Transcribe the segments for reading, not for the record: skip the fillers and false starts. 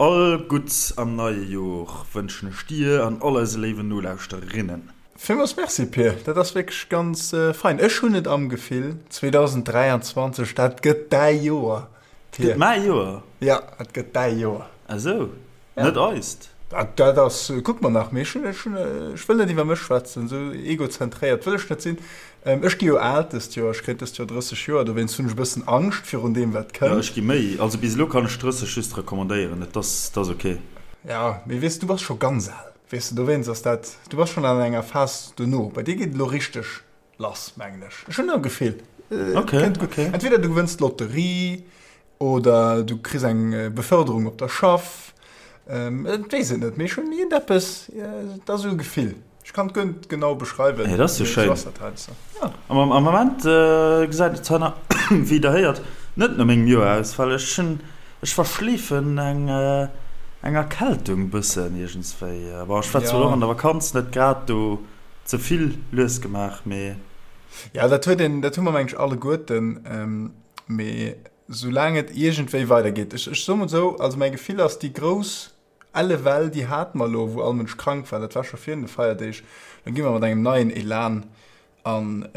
All Gutts am neie Jor wënschen ech dir an all eise léiwen Nolauschtererinnen. Villmools Merci Pir, dat ass wierklech ganz fein. Ech hunn et am Gefill, 2023, dat gëtt däi Joer, Pir. Gëtt mäi Joer? Jo, dat gëtt däi Joer. Ah sou, net eist? Dat ass, kucke mer nach, mee ech hunn, ech hunn, ech wëll net iwwer mech schwätzen, esou egozentréiert wëll ech net sinn. Ech gi jo al dëst Joer, ech kréien dëst Joer 30 Joer, dowéinst hunn ech e bëssen Angscht virun deem wat kënnt. Jo, ech gi méi, also bis elo kann ech 30 just recommandéieren, et ass, et ass ok. Jo, mee weess, du bass scho ganz al, weess de, dowéinst ass dat, du bass schonn an enger Phas dono, bei dir geet et elo richteg lass, mengen ech. Ech hunn e Gefill, et kënnt gutt. Entweder du gewënns d'Lotterie Oder du kriss eng Beförderung op der Schaff. Et weess et net, mee ech hunn iergendeppes, et ass esou e Gefill. Ech kann et guer net genau beschreiwen. Hey, dat ass jo schéin. Ja. Am Moment gesäit et zwar nach, wéi der héiert, net no mengem Joer aus, well ech hunn, ech verschleefen eng eng Erkältung bëssen iergendswéi. Bon, ech war zwar och an der Vakanz net grad do ze vill lues gemaach, mee. Ja, dat huet een, dat hu mer mengen ech alleguerten. Mee soulaang et iergendwéi weidergeet, ech, ech soe mol esou, also mäi Gefill ass, déi grouss elle Well, déi hate mer elo, wou all Mënsch krank war, dat war scho virun de Feierdeeg. Lo gi mer mat engem neien Elan an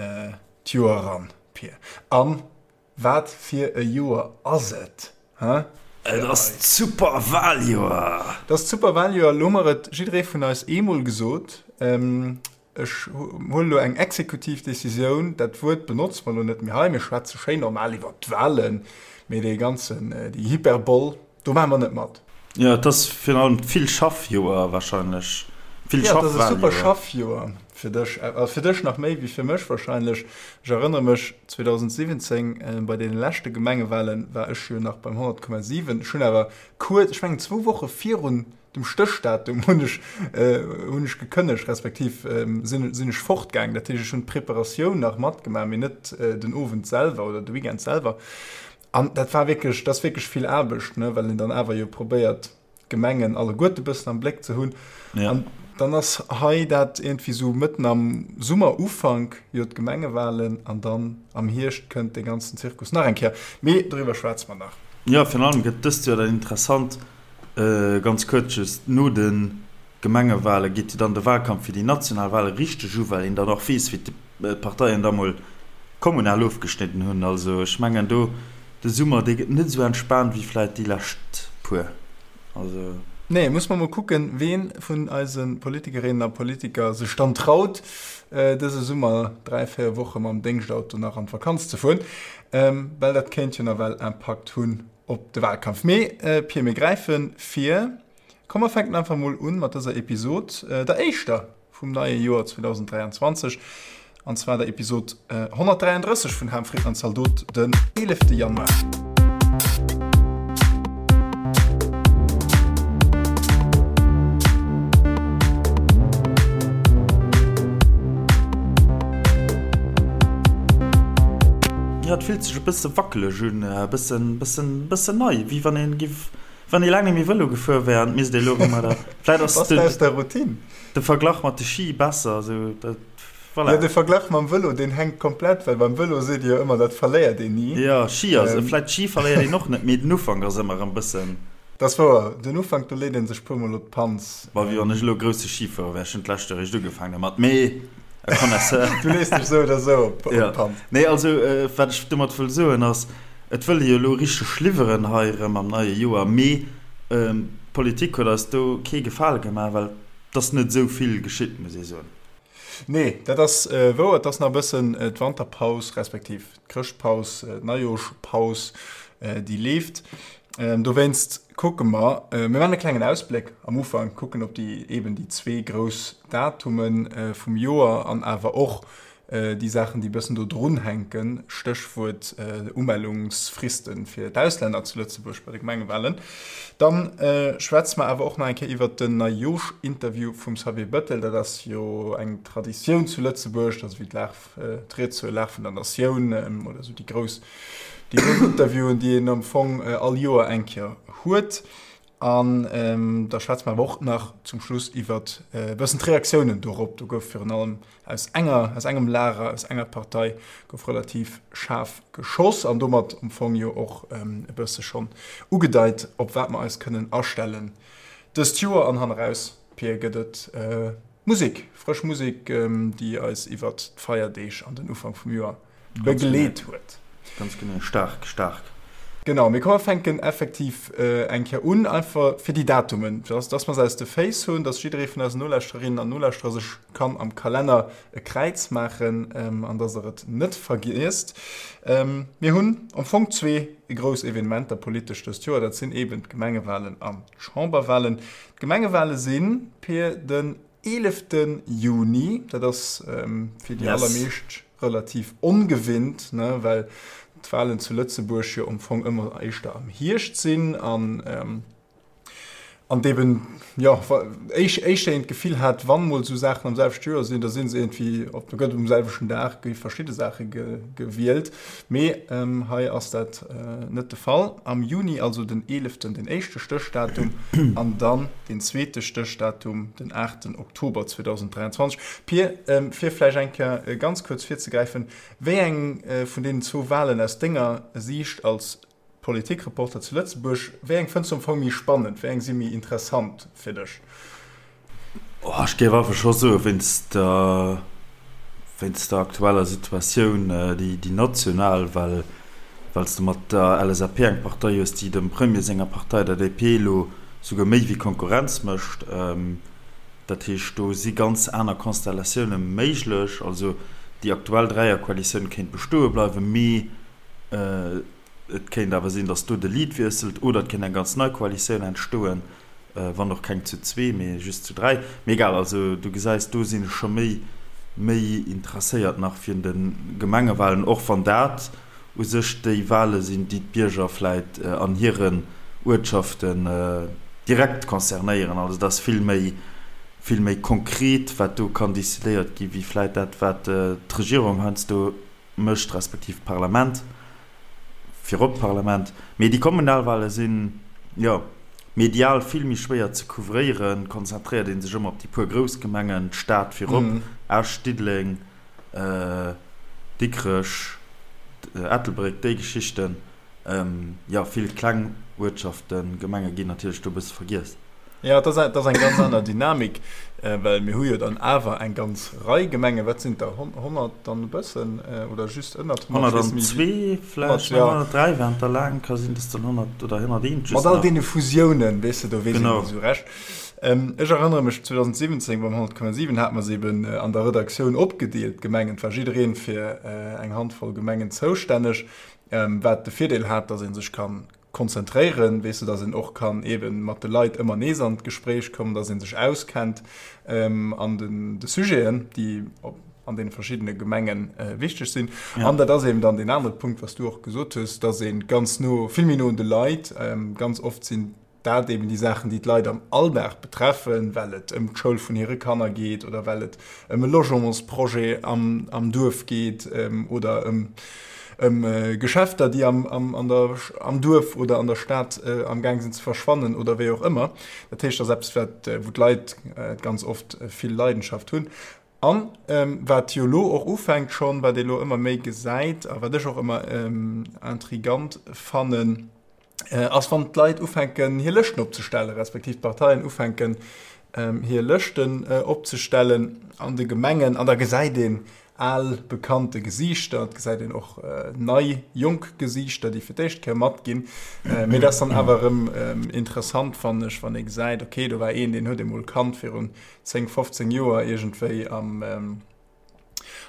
d'Joer eran, Pir. A wat fir e Joer ass et, he? Et ass d'Superwaljoer! Et ass d'Superwaljoer. Elo hu mer et jidderee vun eis eemol gesot. Ech huelen elo eng exekutiv Décisioun, dat Wuert benotze mer elo net méi hei, mir schwätze schéin normal iwwert d'Wahlen, mee dee ganzen, déi Hyperbol, do maache mer net mat. Jo, et ass virun allem d'Vill-Schaff-Joer wahrscheinlech. Jo, et ass e super Schaff-Joer fir dech, a fir dech nach méi wéi fir mech wahrscheinlech. Ech erënnere mech, 2017 bei deene leschte Gemengewahlen war ech jo nach beim 100,7. Ech hunn awer kuerz, ech mengen zwou Woche virun Dem Stéchdatum hunn ech hunn ech gekënnegt, respektiv sinn sinn ech fortgaangen. Dat heescht, ech hunn d'Preparatioun nach matgemaach, mee net den Owend selwer oder de Weekend selwer. An dat war wierklech, dat ass wierklech vill Aarbecht, ne, well een dann awer jo probéiert, d'Gemengen alleguerte bëssen am Bléck ze hunn. Ja. An dann ass hei dat iergendwéi sou mëtten am Summerufank jo d'Gemengewahlen an dann am Hierscht kënnt dee ganzen Zirkus nach eng Kéier. Mee doriwwer schwätze mer nach. Jo, virun allem gëtt dëst Joer dann interessant, Ganz kuerz just, No de Gemengewale geet jo dann de Walkampf fir déi national Wale richteg u, well een dann och weess, wéi d'Parteien da mol kommunal ofgeschnidden hunn. Also ech mengen do de Summer, dee gëtt net esou entspaant wéi vläit déi lescht puer. Also. Nee, muss mer mol kucken, ween vun eise Politikerinnen a Politiker sech dann traut, dëse Summer 3, 4 Woche mam Déngschtauto nach an d'Vakanz ze fueren, well dat kéint jo nawell Impakt hunn op de Wahlkampf. Mee Pir, mir gräife vir. Komm mer fänken einfach mol un mat dëser Episod, der éischter vum neie Joer 2023, an zwar der Episod 133 vun Ham, Fritten an Zaldot, den 11 Januar. Jo, et fillt sech e bësse wackeleg un, e bëssen, bëssen, bëssen nei, wéi wann een giff, wann ee laang net méi Vëlo gefuer wär an et misst ee elo erëm oder vläit ass Bass de aus der Routine? de Verglach mat de Ski besser, esou dat, voilà. Jo, de Verglach mam Vëlo, deen hänkt komplett, well beim Vëlo seet ee jo ëmmer, dat verléiert een ni. Jo, Ski ass, vläit Ski verléiert een och net, mee den Ufank ass ëmmer erëm bëssen. Dat ass wouer, den Ufank, do leet ee sech puermol op d'Panz. Bon, wéi wann ech elo e grousse Skifuerer wär, ech hunn d'lescht Joer eréischt ugefaangen domat, mee. E Connaisseur. Du lees dech sou oder sou op d'Panz. Nee, also wat ech domat wëll soen ass, et wëll ee jo elo richteg liwweren hei erëm am neie Joer, mee d'Politik huet eis do kee Gefale gemaach, well et ass net esou vill geschitt, muss ee soen. Nee, dat ass wouer. Et ass nach e bëssen d'Wanterpaus respektiv d'Chrëschtpaus, d'Neijoerschpaus, déi leeft. Dowéinst kucke mer, mir maachen e klengen Ausbléck am Ufank, kucken op déi eben déi zwee grouss Datume vum Joer an awer och déi Saachen, déi e bëssen do drun hänken, Stéchwuert Umellungsfriste fir d'Auslänner zu Lëtzebuerg bei de Gemengewalen. Dann schwätze mer awer och nach eng Kéier iwwert den Neijooschinterview vum Xavier Bettel. Dat ass jo eng Traditioun zu Lëtzebuerg, dat ass wéi d'Lag, d'Ried zur Lag vun der Natioun oder esou déi grouss, déi grouss Interviewen, déi een am Fong all Joer eng Kéier huet. An da schwätze mer awer och nach zum Schluss iwwert e bëssen d'Reaktiounen dorop. Do gouf virun allem aus enger, aus engem Lager, aus enger Partei gouf relativ schaarf geschoss an domat am Fong jo och e bësse schonn ugedeit, op wat mer eis kënnen astellen dëst Joer. An hanneraus, Pir, gëtt et Musek, frësch Musek, déi eis iwwert d'Feierdeeg an den Ufank vum Joer begleet huet. Ganz genee, staark, staark. Genau, mee komm mer fänken effektiv eng Kéier un, einfach fir déi Datumen, dass, dass mer se aus de Féiss hunn, dass jidderee vun eisen Nolauschtererinnen an Nolauschterer sech kann am Kalenner e Kräiz maachen an dass der et net vergiesst. Mir hunn am Fong zwee grouss Evenementer politesch dëst Joer, dat sinn eeben d'Gemengewalen an d'Chamberwalen. D'Gemengewale sinn, Pir, den 11. Juni, dat ass fir déi allermeescht relativ ongewinnt, ne, well d'Walen zu Lëtzebuerg jo am Fong ëmmer éischter am Hierscht sinn an an eben, jo, éischter een d'Gefill hat, wann mol esou Saachen am selwechte Joer sinn, da si se iergendwéi op, da gëtt um selwechten Dag gi verschidde Saache gewielt. Mee hei ass dat net de Fall. Am Juni, also den eeleften, den éischte Stéchdatum an dann den zweete Stéchdatum, den aachten Oktober 2023. Pir, fir vläicht eng Kéier ganz kuerz virzegräifen, Wéi eng vun deenen zwou Walen aus denger Siicht als Politikreporter zu Lëtzebuerg, wéi eng fënns du am Fong méi spannend, wéi eng si méi interessant fir dech? Oh, ech géif einfach scho soen, wéinst der, wéinst der aktueller Situatioun, déi, déi national, well, well s de mat der LSAP eng Partei hues, déi dem Premier senger Partei, der DP, elo souguer méi wéi Konkurrenz mécht. Dat heescht, do si ganz aner Konstellatioune méiglech. Also déi aktuell Dräierkoalitioun kéint bestoe bleiwen, mee Et kéint awer sinn, datt do de Lead wiesselt oder et kéint eng ganz nei Koalitioun entstoen, wann och keng zu zwee, mee just zu dräi. Mee egal, also du gesäis, do sinn ech scho méi méi interesséiert nach virun de Gemengewalen, och wann dat u sech déi Wale sinn, déi d'Bierger vläit an hiren Uertschaften direkt concernéieren. Also dat ass vill méi vill méi konkret, wat do kann decidéiert gi wéi vläit dat, wat d'Regierung heiansdo mécht, respektiv d'Parlament, virop d'Parlament. Mee déi Kommunalwale sinn, jo, medial vill méi schwéier ze couvréieren, konzentréiert ee sech ëmmer op déi puer grouss Gemengen, d'Stad virop, Esch, Diddeleng, Dikrech, Ettelbréck, déi Geschichten. Jo, vill kleng Uertschaften, Gemenge ginn natierlech do e bësse vergiess. Jo, et ass eng ganz aner Dynamik, well mir hu jo dann awer eng ganz Rei Gemengen. Wat sinn et der? 100 an e bëssen oder just ënnert 100? 102 vläicht, mä 103 waren et der laang. Ka sinn, dass dann 100 oder 101 just nach. Mat all deene Fusiounen, weess de, do weess een net esou recht. Ech erënnere mech, 2017 beim 100,7 hate mer se eben an der Redaktioun opgedeelt, d'Gemengen. Et war jiddereen fir eng Handvoll Gemengen zoustänneg. Wat de Virdeel hat, datt ee sech ka konzentréieren, weess de, datt een och kann eebe mat de Leit ëmmer nees an d'Gespréich kommen, datt ee sech auskennt an den de Sujeten, déi an deene verschiddene Gemenge wichteg sinn. An dat ass eeben dann deen anere Punkt, wat s du och gesot hues, datt ee ganz no, vill méi no un de Leit, ganz oft sinn dat eben déi Saachen, déi d'Leit am Alldag betreffen, well et ëm d'Schoul vun hire Kanner geet oder well et ëm e Logementsprojet am, am Duerf geet oder ëm, ëm Geschäfter, déi am, am, an der, am Duerf oder an der Stad am Gaang sinn ze verschwannen oder wéi och ëmmer. Dat heescht, dat ass eppes, wat, wou d'Leit ganz oft vill Leidenschaft hunn. An wat jo elo och ufänkt schonn, wat ee elo ëmmer méi gesäit a wat ech och ëmmer intrigant fannen, ass wann d'Leit ufänken hir Lëschten opzestellen, respektiv d'Parteien ufänken hir Lëschten opzestellen an de Gemengen an da gesäit een al bekannte Gesiichter, et gesäit een och nei jonk Gesiichter, déi fir d'éischt Kéier matginn. Mee dat ass dann awer erëm interessant fannen ech, wann ee gesäit, okay do war een, deen huet ee mol kannt virun 10, 15 Joer iergendwéi am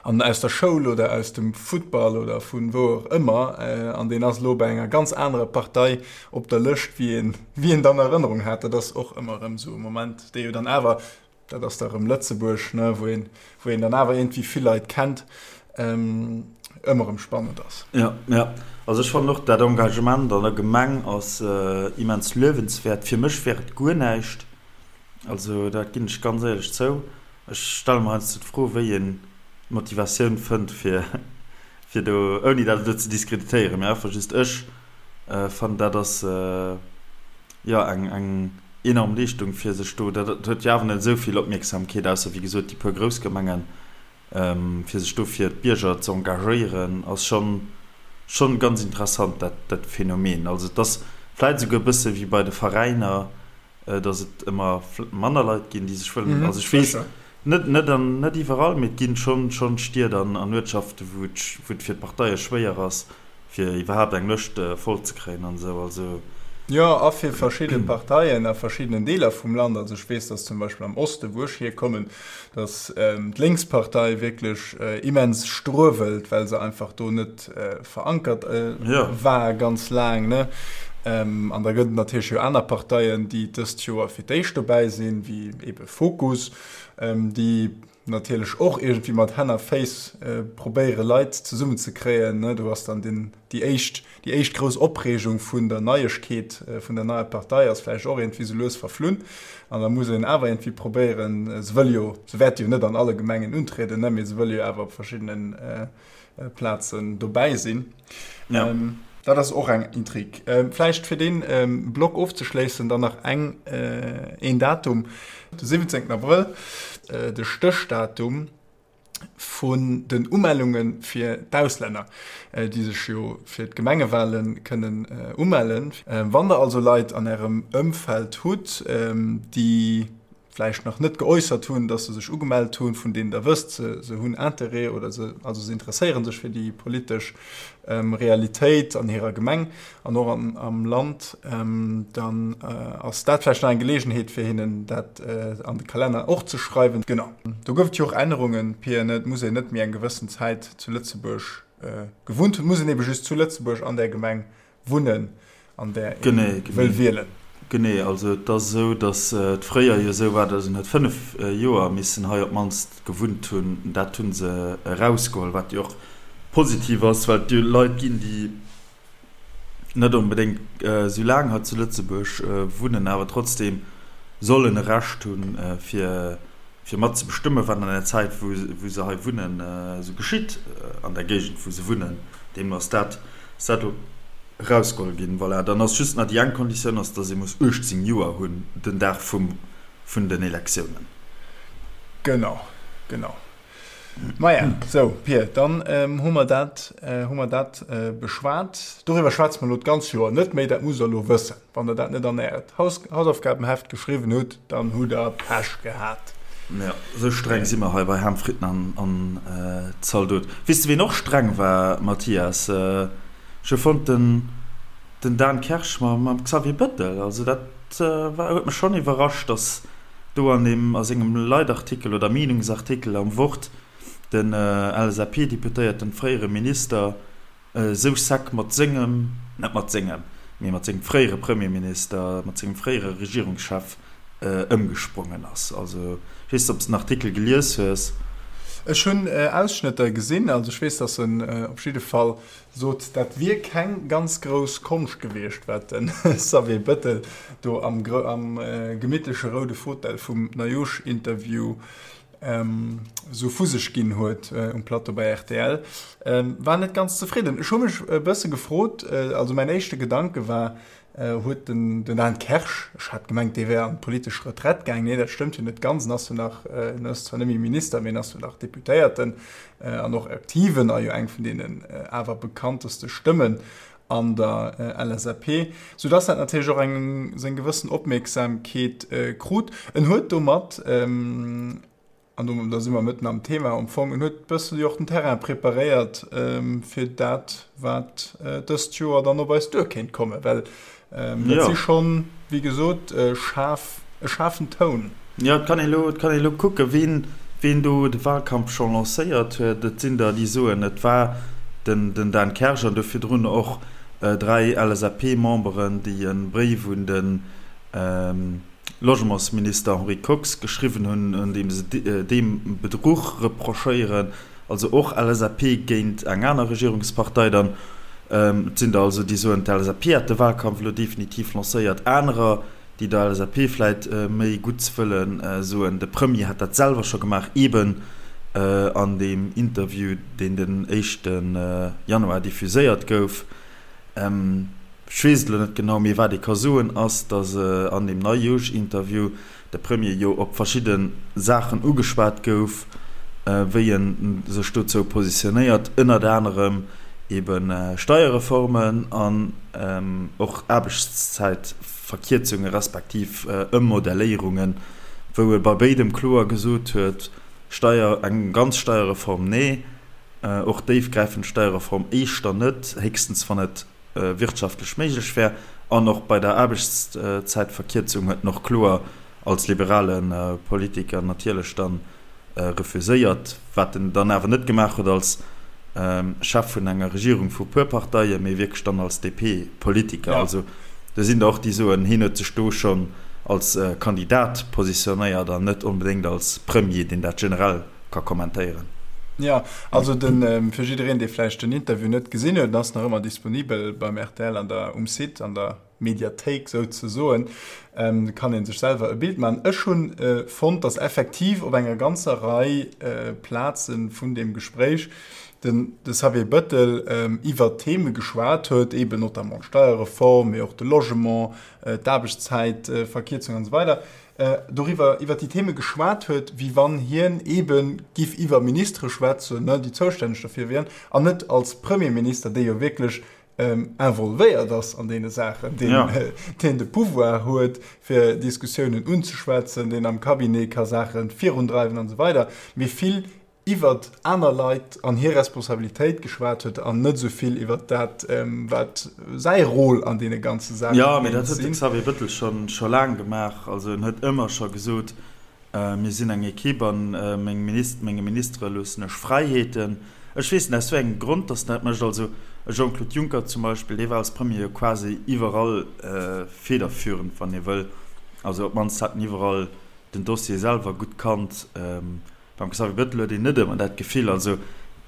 an aus der Schoul oder aus dem Futtball oder vun wou och ëmmer, an deen ass elo bei enger ganz anerer Partei op der Lëscht, wéi een, wéi een dann Erënnerung hat. Dat ass och ëmmer erëm esou e Moment, dee jo dann awer, dat ass da erëm Lëtzebuerg, ne, wou een, wou een dann awer iergendwéi vill Leit kennt, ëmmer erëm spannend ass. Jo, jo. Also ech fannen och, dat Engagement an der Gemeng ass immens luewenswäert. Fir mech wär et guer näischt, also dat ginn ech ganz éierlech zou. Ech stelle mer heiansdo d'Fro, wéi een d'Motivatioun fënnt, fir, fir do, ouni dat elo ze diskreditéieren, mee einfach just ech fannen, dat ass. Jo, eng eng enorm Leeschtung fir sech do, dat huet jo awer net esou vill Opmierksamkeet, ausser wéi gesot déi puer grouss Gemengen, fir sech do fir d'Bierger ze engagéieren, ass schonn schonn ganz interessant dat dat Phänomen. Also et ass vläit esouguer e bësse wéi bei de Veräiner, datt et ëmmer manner Leit ginn, déi sech wëllen, also ech weess net net an net iwwerall, mee et ginn schonn schonn Stied an an Uertschaften, wou et wou et fir d'Parteie schwéier ass, fir iwwerhaapt eng Lëscht voll ze kréien an esou, also. Jo, a fir verschidde Parteien a verschiddenen Deeler vum Land. Also ech weess, datt zum Beispill am Osten, wou ech hierkommen, datt d'Lénkspartei wierklech immens struewelt, well se einfach do net verankert war ganz laang, ne. An da gëtt et natierlech jo aner Parteien, déi dëst Joer fir d'éischt dobäi sinn, wéi eebe Fokus, déi natierlech och iergendwéi mat Hänn a Féiss probéiere Leit zesummen ze kréien. Do ass dann den, déi éischt, déi éischt grouss Opreegung vun der Neiegkeet vun der neier Partei ass vläicht och iergendwéi sou lues verflunn. An da muss een awer iergendwéi probéieren, se wëlle jo, se wäerte jo net an alle Gemengen untrieden, ne, mee se wëlle jo awer op verschiddenen Plazen dobäi sinn. Ja. Ähm, dat ass och eng Intrig. Ähm, vläicht fir den ähm, Block ofzeschléissen dann nach eng äh, een Datum, de 17. Abrëll, äh, de Stéchdatum vun den Umellunge fir d'Auslänner, äh, déi sech jo fir d'Gemengewale kënnen äh, umellen. Äh, wann der also Leit an ärem Ëmfeld hutt, ähm, déi vläicht nach net geäussert hunn, dass se sech ugemellt hunn, vun deenen Der wësst, se, se hunn Interêt oder se, also se interesséiere sech fir déi politesch Realitéit an hirer Gemeng an och an, am Land, dann ass dat vläicht nach eng Geleegenheet, fir hinnen dat an de Kalenner och ze schreiwen. Genau. Do gouf et jo och Ännerungen, Pia, ne? Et muss een net méi eng gewëssen Zäit zu Lëtzebuerg gewunnt hunn, et muss een ebe just zu Lëtzebuerg an där Gemeng wunnen, an där ee wëll wielen. Genee, also et ass esou, datt et fréier jo esou war, datt een huet 5 Joer missen hei op d'mannst gewunnt hunn. Dat hu se erausgeholl, wat jo och positiv ass, well et jo Leit ginn, déi net onbedéngt esou laang hei zu Lëtzebuerg wunnen, awer trotzdeem sollen e Recht hunn, fir fir mat ze bestëmmen, wat an der Zäit, wou se hei wunnen, esou geschitt an der Géigend, wou se wunnen. Deemno ass dat ass dat elo erausgeholl ginn. Voilà, dann ass just nach déi eng Konditioun ass, dass ee muss 18 Joer hunn den Dag vum vun den Elektiounen. Genau, genau. Maja, sou, Pir, dann hu mer dat, hu mer dat beschwat. Doriwwer schwätze mer elo d'ganz Joer net méi, dat musst Der elo wëssen. Wann Der dat net an Äert Hausaufgabenheft geschriwwen hutt, dann hutt Der Pech gehat. Jo, esou streng si mer hei bei Ham, Fritten an Zaldot. Weess de ween och streng war, Mathias? Ech hu fonnt den Dan Kersch mam Xavier Bettel. Also dat war, huet mech schonn iwwerrascht, datt do an deem, a sengem Leitartikel oder Meenungsartikel am Wort den LSAP-Deputéierten, fréiere Minister, esou sec mat sengem, net mat sengem, mee mat sengem fréiere Premierminister, mat sengem fréiere Regierungschef ëmgesprongen ass. Also, ech weess net, ob s de den Artikel gelies hues. Ech hunn Ausschnëtter gesinn. Also ech weess, datt en op jidde Fall sot, dat wier keng ganz grouss Konscht gewiescht, wat de Xavier Bettel do am gemittleche roude Fauteuil vum Nayush-Interview esou vu sech ginn huet um Plateau bei rtl. War net ganz zefridden. Ech hu mech e bësse gefrot, also mäin éischte Gedanke war, huet den Dan Kersch, ech hat gemengt, dee wär an d'politesch Retraite gaang, nee, dat stëmmt jo net ganz, en ass jo nach, en ass zwar net méi Minister, mee en ass jo nach Deputéierten an och Aktiven a jo eng vun deenen awer bekannteste Stëmmen an der LSAP, soudass dat natierlech och eng seng gewëssen Opmierksamkeet krut. En huet domat, an do da si mer mëtten am Thema am Fong, en huet e bësse jo och den Terrain preparéiert fir dat, wat dëst Joer dann op eis duer kéint kommen, well dat si schonn, wéi gesot, schaarf, e schaarfen Toun. Jo, et kann ee lo, et kann ee lo kucken, ween, ween do de Wahlkampf scho lancéiert huet. Et sinn der, déi soen, et war den, den Dan Kersch an do virdrun och 3 LSAP-Memberen, déi e Bréif un de Logementsminister Henri Kox geschriwwen hunn, an deem se deem Bedruch reprochéieren. Also och LSAP géint eng aner Regierungspartei dann. Et sinn der also, déi soen, d'LSAP hätt de Wahlkampf elo definitiv lancéiert. Anerer, déi der LSAP vläit méi Gutts wëllen, soen, de Premier hätt dat selwer scho gemaach, eeben an deem Interview, deen den éischte Januar diffuséiert gouf. Ech weess et elo net genau, mee wat ee ka soen, ass, datt an deem Neijoosch-Interview de Premier jo op verschidde Saachen ugeschwat gouf, wéi e sech dozou positionéiert, ënnert anerem ebe Steierreformen an och Aarbechtszäitverkierzunge respektiv Ëmmodelléierungen, wou e bei béidem kloer gesot huet, Steier, eng ganz Steierreform, nee, och déifgräifend Steierreform éischter net, héchstens wann et wirtschaftlech méiglech wär. An och bei der Aarbechtszäitverkierzung huet en och kloer als liberale Politiker natierlech dann refuséiert, wat en dann awer net gemaach huet als Chef vun enger Regierung vu puer Parteien, mee wierklech dann als DP-Politiker. Also do sinn der och, déi soen, hien huet sech do schonn als Kandidat positionéiert an net onbedéngt als Premier, deen dat generell ka kommentéieren. Jo, also de fir jiddereen, dee vläicht den Interview net gesinn huet, en ass nach ëmmer disponibel beim rtl an der um Site an der Mediathéik souzesoen, kann ee sech selwer e Bild maachen. Ech hunn fonnt, datt effektiv op enger ganzer Rei Plaze vun deem Gespréich den de Xavier Bëttel iwwer Theme geschwat huet, eeben notamment d'Steierreform, mee och de Logement, d'Aarbechtszäitverkierzung an esou weider, doriwwer, iwwer déi Theme geschwat huet, wéi wann hien eebe giff iwwer Ministere schwätzen, ne, déi zoustänneg derfir wieren, an net als Premierminister, dee jo wierklech involvéiert ass an deene Saachen, deen, ja. deen de Pouvoir huet, fir Diskussiounen unzeschwätzen, deen am Cabinet ka Saache virundreiwen an esou weider, mee vill iwwert aner Leit an hir Responsabilitéit geschwat huet an net esou vill iwwert dat, wat säi Rôle an deene ganze Saache Jo, mee dat huet de Xavier Bëttel scho scho laang gemaach. Also en huet ëmmer scho gesot, Mir sinn eng Equipe an meng Minis menge Ministere loossen ech Fräiheeten. Ech weess net aus wéi engem Grond datt en dat mécht. Also e Jean-Claude Juncker zum Beispill, dee war als Premier jo quasi iwwerall federführend, wann ee wëll. Also op d'mannst hat en iwwerall den Dossier selwer gutt kannt. Beim Xavier Bettel huet een net ëmmer dat Gefill, also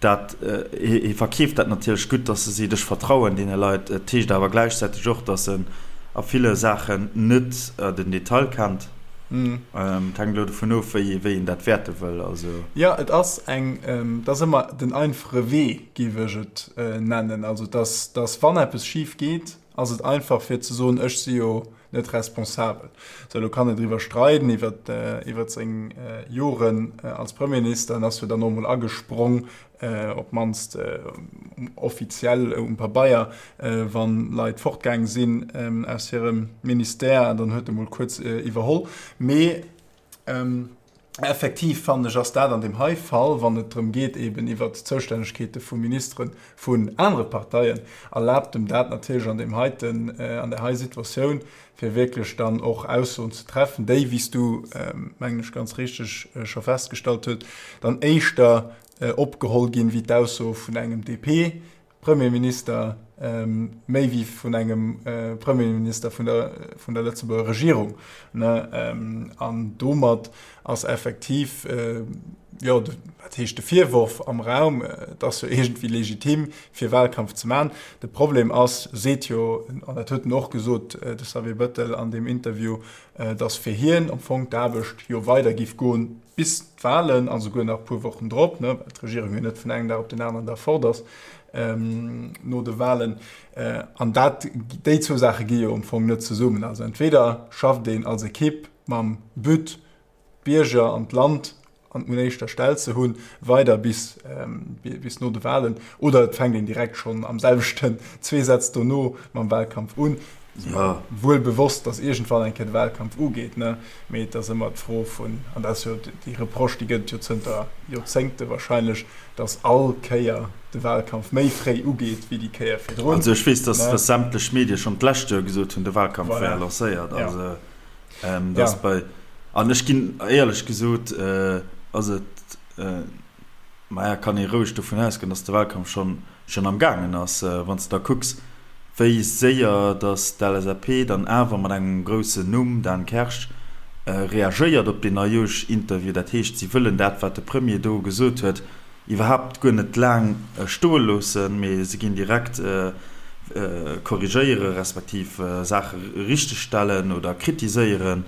dat, hie verkeeft dat natierlech gutt, datt e seet, ech vertrauen deene Leit. Et heescht awer gläichzäiteg och, datt en a ville Saachen net den Detail kennt. Et hänkt elo dovun of, wéi een dat wäerte wëll. Also. Jo, et ass eng, et ass ëmmer den einfache Wee, géif ech et nennen. Also datt, datt wann eppes schif geet, ass et einfach fir ze soen, ech si jo net responsabel. Sou, elo kann een driwwer streiden, iwwer, iwwer seng Joren als Premierminister. En ass jo dann och emol agesprong, op d'mannst offiziell um Pabeier, wann Leit fortgaang sinn aus hirem Ministère, an dann huet e mol kuerz iwwerholl. Mee Effektiv fannen ech, ass dat an deem hei Fall, wann et drëm geet eben iwwert d'Zoustännegkeete vu Ministere vun anere Parteien, erlaabt em dat natierlech an deem heiten, an där hei Situatioun, fir wierklech dann och Aussoen ze treffen, déi, wéi s du, mengen ech, ganz richteg scho festgestallt huet, dann éischter opgeholl ginn, wéi d'Ausso vun engem DP Premierminister méi wéi vun engem Premierminister vun der, vun der Lëtzebuerger Regierung. Ne? An domat ass effektiv, jo, wat heescht de Virworf am Raum, et ass jo iergendwéi legitim, fir Wahlkampf ze maachen. De Problem ass, seet jo, an dat huet en och gesot, de Xavier Bettel an deem Interview, datt fir hien am Fong d'Aarbecht jo weider giff goen, bis d'Wahlen a souguer nach e puer Wochen drop, ne, well d'Regierung jo net vun engem Dag op den aneren Dag fort ass no de Wahlen. An dat, déi zwou Saache gi jo am Fong net zesummen. Also entweder schafft een als Ekipp mam But, d'Bierger an d'Land an un éischter Stell ze hunn, weider bis, bis no de Wahlen, oder et fänkt een direkt schonn am selwechten, zwee Sätz dono mam Wahlkampf un. Ja. Wuel bewosst, datt iergendwann eng Kéier de Wahlkampf ugeet, ne? Mee et ass ëmmer d'Fro vun, an dat ass jo déi Reproche, déi gëtt et jo zënter Joerzéngte wahrscheinlech, datt all Kéier de Wahlkampf méi fréi ugeet wéi déi Kéier virdrun. Also ech weess, datt datt sämtlech Medie schonn d'lescht Joer gesot hunn, de Wahlkampf wär Voilà. lancéiert. Ja. Also Ja. datt bei, an ech ginn, éierlech gesot, ass et, maja, kann ee roueg dovun ausgoen, datt de Wahlkampf schonn schonn am gaangen ass, wann s de da kucks, wéi séier datt d'LSAP dann awer mat engem groussen Numm, Dan Kersch, reagéiert op deen Neijoosch-Interview. Dat heescht, si wëllen dat, wat de Premier do gesot huet, iwwerhaapt guer net laang stoe loossen, mee se ginn direkt korrigéiere respektiv Saache richtegstellen oder kritiséieren.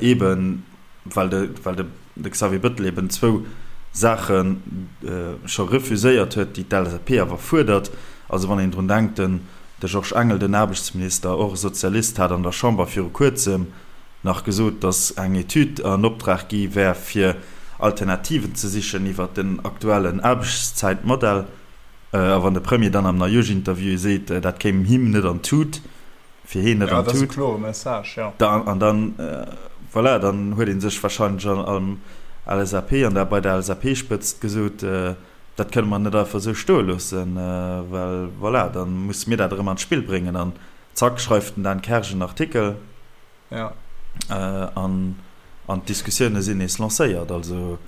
Eben well de, well de, de Xavier Bettel eben zwou Saache scho refuséiert huet, déi d'LSAP awer fuerdert. Also wann een drun denkt, de. De Georges Engel, den Aarbechtsminister, och e Sozialist, hat an der Chamber viru kuerzem nach gesot, datt eng Etüd an Optrag gi wär, fir Alternativen ze sichen iwwer den aktuellen Aarbechtszäitmodell. A wann de Premier dann am Neijooschinterview seet, dat kéim him net an d'Tut, fir heen net an d'Tut, an dann, voilà, dann huet ee sech warscheinlech am LSAP an der bei der LSAP-Spëtzt gesot, Dat kënne mer net einfach esou stoe loossen, well voilà, da musse mir dat erëm an d'Spill bréngen. An zack schreift den Dan Kersch en Artikel an d'Diskussioune sinn nees lancéiert. Also,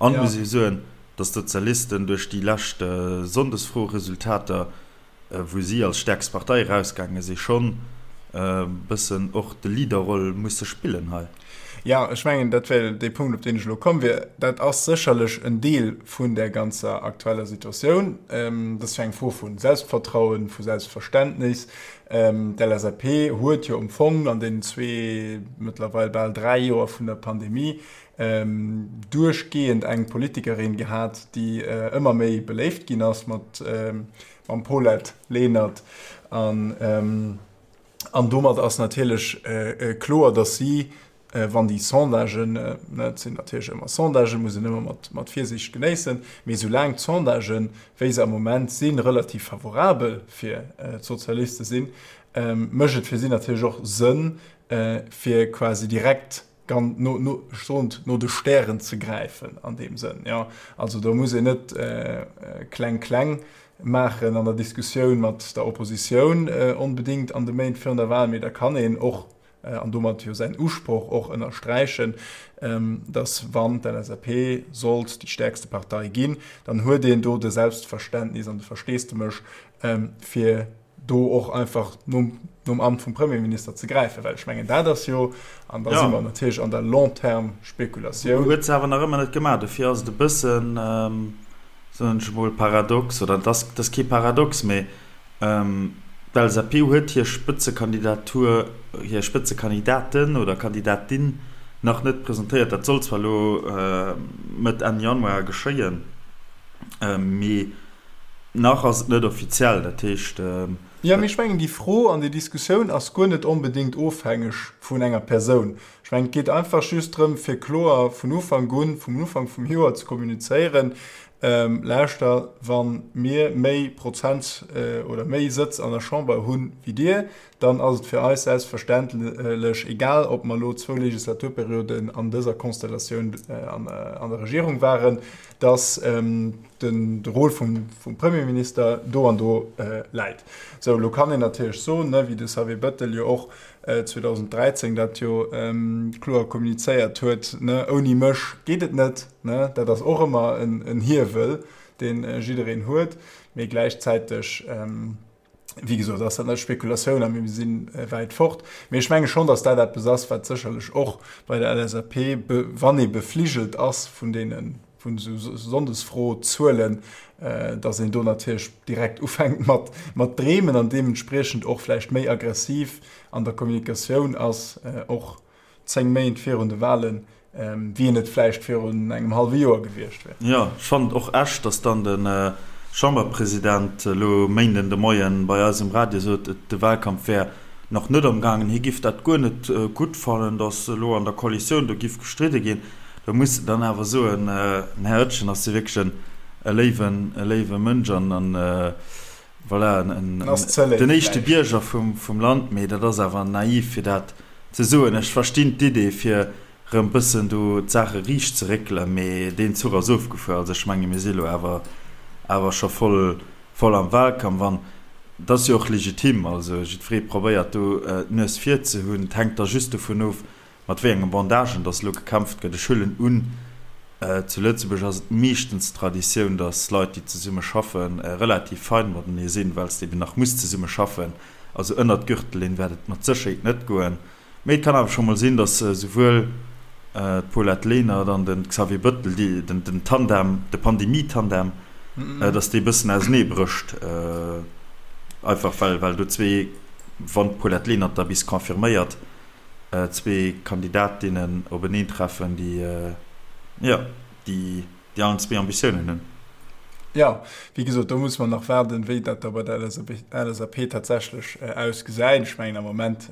an muss ee soen, datt d'Sozialisten duerch déi lescht Sonndesfroeresultater wou si als stäerkst Partei erausgaange si, schonn e bëssen och de Leaderroll musse spillen hei. Jo, ech mengen, dat wär dee Punkt, op deen ech elo komm wier. Dat ass sécherlech en Deel vun där ganzer aktueller Situatioun. Dat ass jo eng Fro vu Selbstvertrauen, vu Selbstverständnis. D'LSAP huet jo am Fong an deenen zwee, mëttlerweil bal dräi Joer vun der Pandemie duerchgehend eng Politikerin gehat, déi ëmmer méi beléift ginn ass mat mam Paulette Lenert an an domat ass natierlech kloer, datt si, wann déi Sondagen, et sinn natierlech ëmmer Sondagen, muss een ëmmer mat mat Virsiicht genéissen, mee soulaang d'Sondagen, wéi se am Moment sinn, relativ favorabel fir d'Sozialiste sinn, mécht et fir si natierlech och Sënn, fir quasi direkt gan no no ech soen no de Stären ze gräifen an deem Sënn, jo. Also do muss een net kleng kleng maachen an der Diskussioun mat der Oppositioun onbedéngt an de Méint virun der Wahl, mee da kann een och, an domat jo säin Usproch och ënnersträichen, datt wann d'LSAP sollt déi stäerkste Partei ginn, dann huet een do de Selbstverständnis an de Versteesdemech fir do och einfach nom, nom Amt vum Premierminister ze gräifen, well ech mengen, dat ass jo, an da si mer natierlech an der Long-terme-Spekulatioun. Huet se awer nach ëmmer net gemaach. Dofir ass et e bëssen, soen ech emol, paradox, oder et ass, et ass kee Paradox, mee d'LSAP huet hir Spëtzekandidatur, hir Spëtzekandidaten oder Kandidatin nach net presentéiert. Dat soll zwar elo Mëtt, Enn Januar geschéien, mee Nach ass et net offiziell, dat heescht. Jo, mee ech mengen, déi Fro an déi Diskussioun ass guer net onbedéngt ofhängeg vun enger Persoun. Ech mengen, et geet einfach just drëm, fir kloer vun Ufank un, vum Ufank vum Joer ze kommunizéieren, Lauschter, wa mir méi Prozent oder méi Sëtz an der Chamber hu wéi dir, dann ass et fir eis selbstverständlech, egal ob mer elo zwou Legislaturperioden an dëser Konstellatioun an der Regierung waren, dass de Rôle vum Premierminister do an do läit. Sou, elo kann een natierlech soen, wéi de Xavier Bettel jo och 2013 dat jo kloer kommunizéiert huet, ouni mech geet et net. Dat ass och ëmmer en Hiewel, dee jiddereen huet, mee gläichzäiteg, Wéi gesot ass dat net Spekulatioun a mir si wäit fort. Mee ech menge schonn, datt dat eppes ass, wat sécherlech och bei der LSAP, wann ee befligelt ass vun deene vun esou Sonndesfro-Zuelen, datt een do natierlech direkt ufänkt mat mat dreemen an deementspriechend och vläicht méi aggressiv an der Kommunikatioun ass, och 10 Méint virun de Wahlen, wéi en et vläicht virun engem hallwe Joer gewiescht wär. Jo, ech fannen et och echt, datt dann de Chamberpresident elo Méinden de Moien bei eis um Radio sot, de Wahlkampf wär nach net am gaangen, hie giff dat guer net gutt fannen, datt elo an der Koalitioun do giff gestridde ginn. Do muss de dann awer soen, den Här Oetjen ass jo wierklech e léiwen, e léiwe Mënsch an e Voilà, den éischte Bierger vum Land, mee dat ass awer naiv fir dat ze soen. Ech verstinn d'Idee fir rëm bëssen do d'Saache riicht ze réckelen, mee deen Zuch ass ofgefuer. Also ech menge mir si lo awer awer scho voll voll am Wahlkampf an et ass jo och legitim. Also jiddweree probéiert do d'Nues vir ze hunn. Et hänkt da just dovun of, Mat wéi enge Bandagen dass elo gekämpft gëtt, ech huelen un, zu Lëtzebuerg ass et meeschtens d'Traditioun, dass Leit, déi zesumme schaffen, relativ fein matenee sinn, well s de eben nach muss zesumme schaffen. Also ënnert d'Gürtellinn wäert et mat Sécherheet net goen. Mee et kann awer scho mol sinn, dass souwuel d'Paulette Lenert an de Xavier Bettel, déi, den Tandem, de Pandemie-Tandem, dass dee bëssen ausenee brécht, einfach well, well do zwee, wann d'Paulette Lenert da bis confirméiert, zwee Kandidatinnen openeentreffen, déi, jo, déi, déi allen zwee Ambitiounen hunn. Jo, wéi gesot, do musse mer nach waarden, wéi dat da bei der LSAP tatsächlech ausgesäit. Ech mengen, am Moment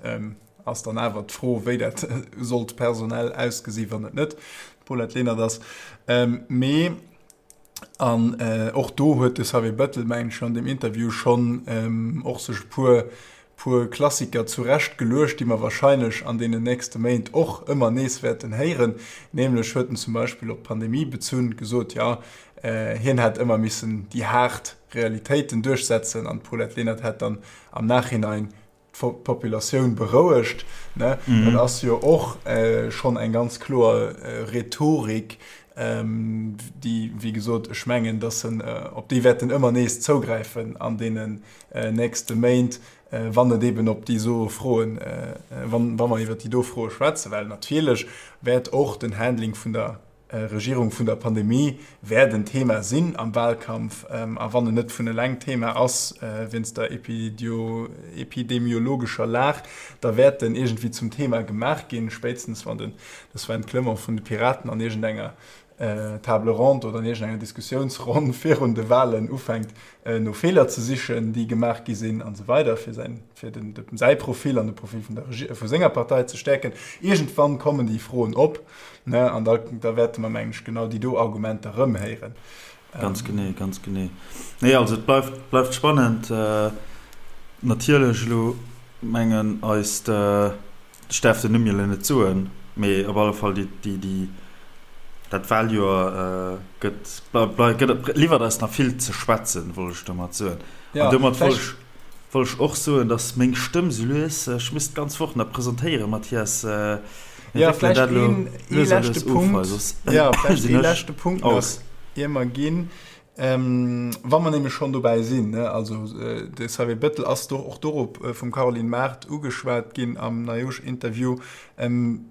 ass dann awer d'Fro, wéi dat sollt personell ausgesi wann et net d'Paulette Lenert ass. Mee an och do huet de Xavier Bettel, mengen ech, an deem Interview schonn och sech e puer puer Klassiker zurecht geluecht, déi mer wahrscheinlech an deenen nächste Méint och ëmmer nees wäerten héieren. Nämlech huet en zum Beispill op d'Pandemie bezunn gesot, jo, hien hätt ëmmer missen déi haart Realitéiten duerchsetzen an d'Paulette Lenert hätt dann am Nachhinein d'Populatioun berouegt. Ne? Dat ass jo och schonn eng ganz kloer Rhetorik, déi, wéi gesot, ech mengen, dass en, op déi wäert en ëmmer nees zougräifen an deenen nächste Méint, wann et eben op déi so Froen, wann, wa mer iwwert déi do Froe schwätzen, well natierlech wäert och den Handling vun der Regierung vun der Pandemie wäert en Thema sinn am Wahlkampf. A wann en net vun eleng Thema ass wéinst der epidemiologescher Lag, da wäert en iergendwéi zum Thema gemaach ginn, spéitstens wann de Sven Clement vun de Piraten an iergendenger Table ronde oder an iergendenger Diskussiounsronn virun de Wahlen ufänkt, no Feeler ze sichen, déi gemaach gi sinn an esou weider, fir säin, fir den, säi Profil an de Profil vun der Regie, vu senger Partei ze stäerken. Iergendwann kommen déi Froen op, ne, an da, da wäerte mer, mengen ech, genau déi do Argumenter erëm héieren. Ganz genee, ganz genee. Nee, also et bleift, bleift spannend. Natierlech elo mengen eist. Ech däerf den Numm jo elo net soen, mee op alle Fall déi, déi, déi, dat Wahljoer gëtt, gëtt, liwwert eis nach vill ze schwätzen, wollt ech domat soen. An domat wollt ech, wollt ech och soen, datt meng Stëmm sou lues, ech misst d'ganz Woch nach presentéieren, Mathias, mir wéckelen dat elo lues a lues of hei, soss sinn ech aus. Ier mer ginn, Wa mer nämlech schonn dobäi sinn, also de Xavier Bettel ass do och dorop vum Caroline Mart ugeschwat ginn am Neijoersch-Interview,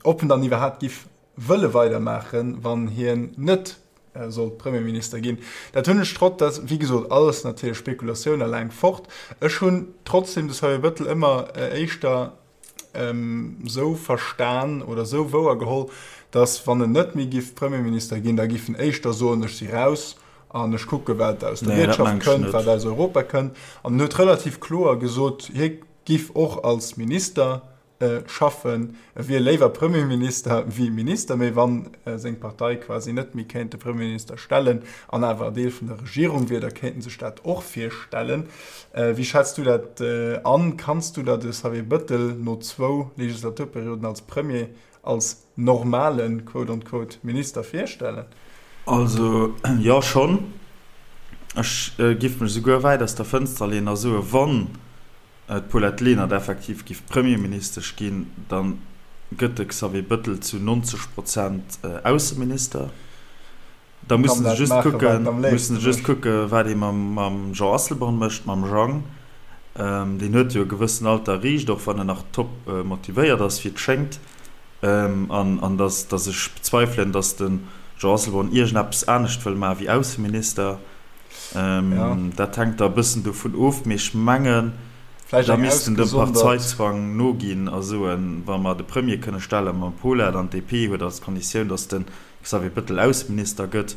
ob en dann iwwerhaapt giff wëlle weidermaachen, wann hien net sollt Premierminister ginn. Dat hunn ech trotz, dat wéi gesot alles natierlech Spekulatioun a laang fort, ech hunn trotzdem de Xavier Bettel ëmmer éischter esou verstan oder esou wouer geholl, datt wann en net méi giff Premierminister ginn, da giff en éischter soen, ech si raus an ech kucke wat aus der Wirtschaft kënnt, wat aus Europa kënnt. An en huet relativ kloer gesot, hie giff och als Minister schaffen, e wier léiwer Premierminister wéi Minister, mee wann seng Partei quasi net méi kéint de Premierminister stellen an awer Deel vun der Regierung wier, da kéint en sech dat och virstellen. Wéi schätz du dat an? Kanns du der de Xavier Bëttel no zwou Legislaturperioden als Premier als normalen, quote on quote, Minister virstellen? Also jo, schonn. Ech giff mech esouguer wäit aus der Fënster leeën a soen, wann d'Paulette Lenert effektiv giff Premierministesch ginn, da gëtt de Xavier Bëttel zu 90 Prozent Ausseminister. Da mussen se just kucken, mussen se just kucken, wat ee mam Jean Asselborn mécht, mam Jang. Deen huet jo e gewëssen Alter erreecht, och wann en nach top motivéiert ass, wéi et schéngt. An an datt datt ech bezweifelen, datt de Jean Asselborn iergendeppes anescht wëll maache wéi Ausseminister. Dat hänkt da e bëssen dovun of. Mee ech mengen, da misst en dem Parteizwang noginn a soen, wa mer de Premier kënne stelle mam Paulette an d'DP huet als Konditioun, datt de Xavier Bettel Ausseminister gëtt,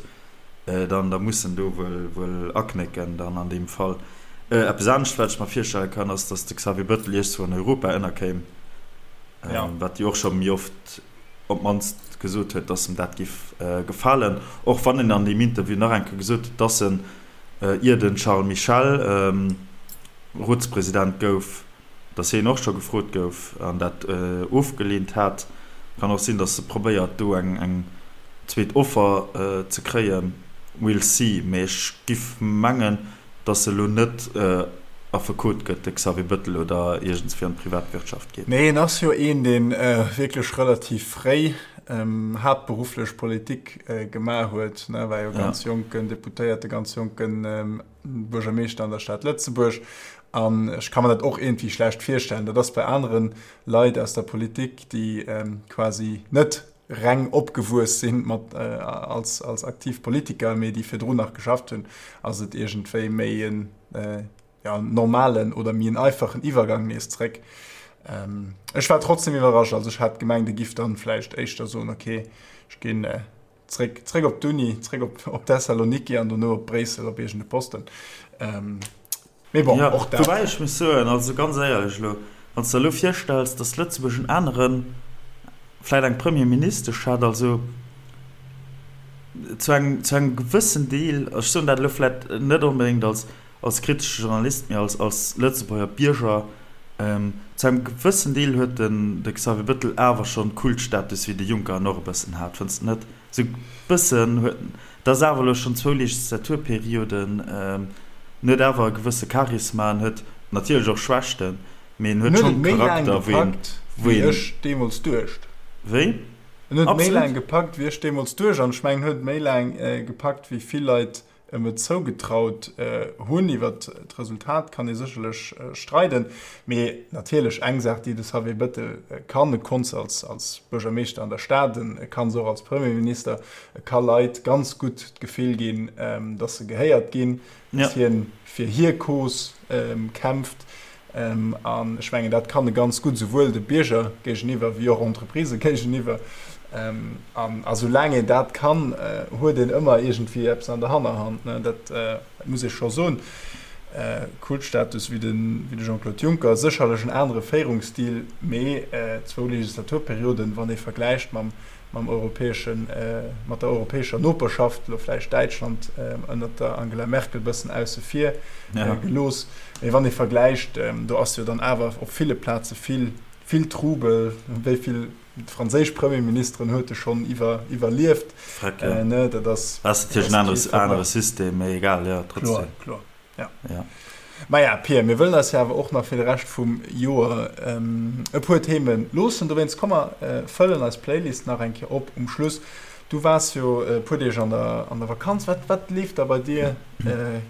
dann da muss en do wuel wuel aknécken dann an deem Fall. Eppes anescht wat ech mer virstelle kann ass, datt de Xavier Bettel iergswou an Europa ënnerkéim, wat jo och scho méi oft op d'mannst gesot huet, datt em dat giff gefalen, och wann en an deem Interview nach eng Kéier gesot huet, datt en, ier de Charles Michel Rotspresident gouf, Dass hien och scho gefrot gouf an dat ofgeleent hat. Kann och sinn, dass e probéiert do eng zweet Offer ze kréien. We'll see. Mee ech giff mengen, dass e lo net Affekot gëtt, de Xavier Bettel, oder iergendswéi an d'Privatwirtschaft geet. Nee, en ass jo een, dee wierklech relativ fréi haaptberufflech Politik gemaach huet. War jo ganz jonken Deputéierte, ganz jonken Buergermeeschter an der Stad Lëtzebuerg. An ech ka mer dat och iergendwéi schlecht virstellen. Dat ass bei anere Leit aus der Politik, déi quasi net reng opgewuess sinn mat als, als aktiv Politiker, mee déi virdrun nach geschafft hunn, ass et iergendwéi méi en ja, normalen oder méi en einfachen Iwwergang nees zréck. Ech war trotzdem iwwerrascht. Also ech hat gemengt, e giff dann vläicht éischter soen, okay, ech ginn. Zréck, zréck op d'Uni, zréck op, op Thessaloniki an dono op Bréissel op iergende Posten. Mee bon, och dat. Woubäi ech muss soen, also ganz éierlech elo, wann s de der elo virstells, datt Lëtzebuerg en aneren, vläicht eng Premierministesch hätt, also zu engem, zu engem gewëssen Deel, ech soen dat elo vläicht net onbedéngt als, als kritesche Journalist, mee als, als Lëtzebuerger Bierger, zu engem gewëssen Deel huet den, de Xavier Bettel awer schonn Kultstatus wéi de Juncker en och e bëssen hat, fënns de net? Sou e bëssen huet en, dat ass awer elo schonn zwou Legislaturperioden, en huet awer e gewësse Charisma, en huet natierlech och Schwächten, mee en huet schonn Charakter, wou een, wou een. Wéi ech deemools duecht. Wéi? En huet méi laang gepackt, wéi ech deemools duecht, an ech mengen, en huet méi laang gepackt, wéi vill Leit em et zougetraut hunn. Iwwert d'Resultat kann ee sécherlech streiden, mee natierlech eng Saach, déi de Xavier Bettel kann, e konnt se als Buergermeeschter an der Stad, e kann se och als Premierminister, e ka Leit ganz gutt d'Gefill ginn, datt se gehéiert ginn, datt hien fir hir Cause kämpft. An ech mengen, dat kann e ganz gutt, esouwuel de Bierger géigeniwwer wéi och Entreprisë géigeniwwer. An a soulaang een dat kann, huet een ëmmer iergendwéi eppes an der Hannerhand. Dat muss ee scho soen. Kultstatus wéi de Jean-Claude Juncker, sécherlech en anere Féierungsstil, mee zwou Legislaturperioden, wann ee vergläicht mam mam europäeschen, mat der europäescher Noperschaft, elo vläicht Däitschland ënnert der Angela Merkel bëssen ausse vir gelooss, mee wann ee vergläicht, do ass jo dann awer op ville Plaze vill, vill Trubel. Wéi vill franséisch Premierministeren huet e schonn iwwer, iwwerlieft? Ne, dat ass. Dat ass natierlech en anere System, mee egal, jo, trotzdem. Kloer, kloer. Ja. Ja. Maja, Pir, mir wëllen eis jo awer och nach fir de Rescht vum Joer e puer Themen loossen. Dowéinst komm mer fëllen eis Playlist nach eng Kéier op um Schluss. Du waars jo e puer Deeg an der, an der Vakanz. Wat, wat leeft da bei dir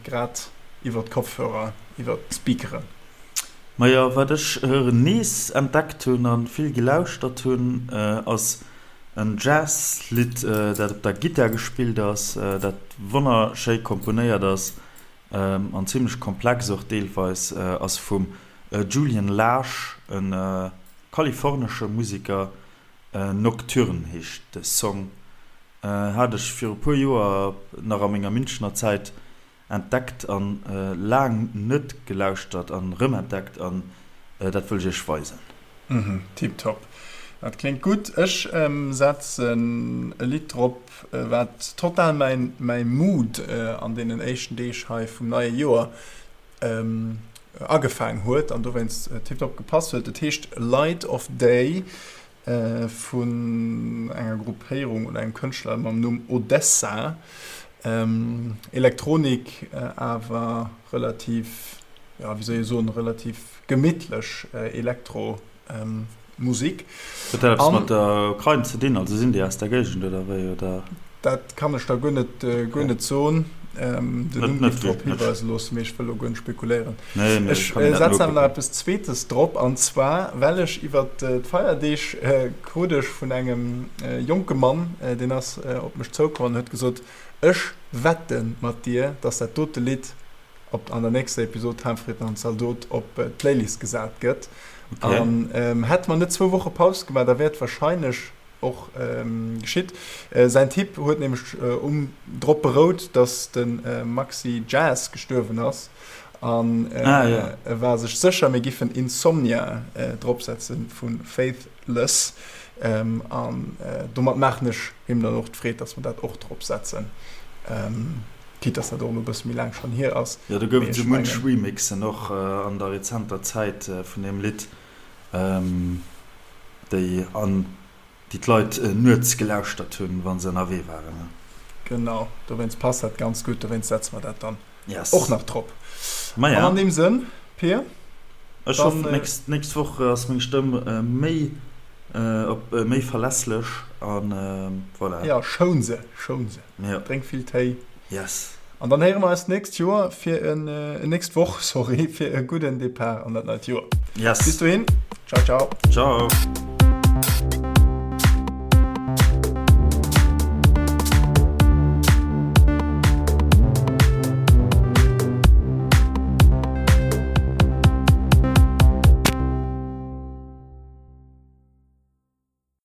grad iwwer d'Kopfhörer, iwwer d'Speakeren? Majo, wat ech nees entdeckt hunn a vill gelauschtert hunn, ass en Jazz-Lidd, dat op der Gittar gespillt ass, dat wonnerschéi komponéiert ass An zimlech komplex och deelweis, ass vum Julian Lage, e kalifornesche Museker. Nocturne heescht de Song. Hat ech viru puer Joer nach a menger Münchener Zäit entdeckt an laang net gelauschtert an rëmentdeckt an dat wëll ech iech weisen. Tiptop, dat kléngt gutt. Ech setzen e Lidd drop, wat total mäin mäi Mood an deenen éischten Deeg hei vum neie Joer agefaang huet an dowéinst tiptop gepasst huet. Et heescht Light of Day vun enger Gruppéierung oder engem Kënschtler mam Numm Odesza. Elektronik awer relativ, jo wéi soll ee soen, relativ gemittlech Elektro Musik. Huet dat eppes mat der Ukrain ze dinn? Also sinn déi aus der Géigend oder wéi? Oder? Dat kann ech der guer net, guer net soen. Den Numm géif drop hiweisen loossen, mee ech wëll elo guer net spekuléieren. Ech setzen awer nach eppes Zweetes drop, an zwar well ech iwwer d'Feierdeeg krut ech vun engem jonke Mann, deen ass op mech zoukomm an huet gesot, Ech wette mat dir, dass dat dote Lidd op an der nächster Episod Hahnfritten an Zaldot op d'Playlist gesat gëtt. Okay. An ähm, hätte mer net zwou Woche Paus gemaach, da wär et wahrscheinlech och ähm, geschitt. Äh, säin Tipp huet nämlech äh, um, drop berout, dass de äh, Maxi Jazz gestuerwen ass. An äh, ah, ja. e war sech sécher, mir giffen Insomnia äh, dropsetzen vu Faithless. Ähm, an äh, domat maachen ech him dann och d'Freed, dass mer dat och dropsetzen. Ähm, Quitte dass dat och elo e bësse méi laang schonn hier ass. Jo, do gouf et esou munch Remixen och an der rezenter Zäit vun deem Lidd, déi an déi d'Leit nuets gelauschtert hunn, wa se ënnerwee waren. Genau, dowéinst passt dat ganz gutt, dowéinst setze mer dat dann och nach drop. An an deem Sënn, Pir, Ech hoffen, d'nächst Woch ass meng Stëmm méi op méi verlässlech an voilà. Jo, schoun se, schoun se. Ja. Drénk vill Téi. Yes. An dann héiere mer eis d'nächst Joer fir en, nächst Woch, sorry, fir e gudden Depart an dat neit Joer. Yes. Bis dohin. Ciao, ciao. Ciao.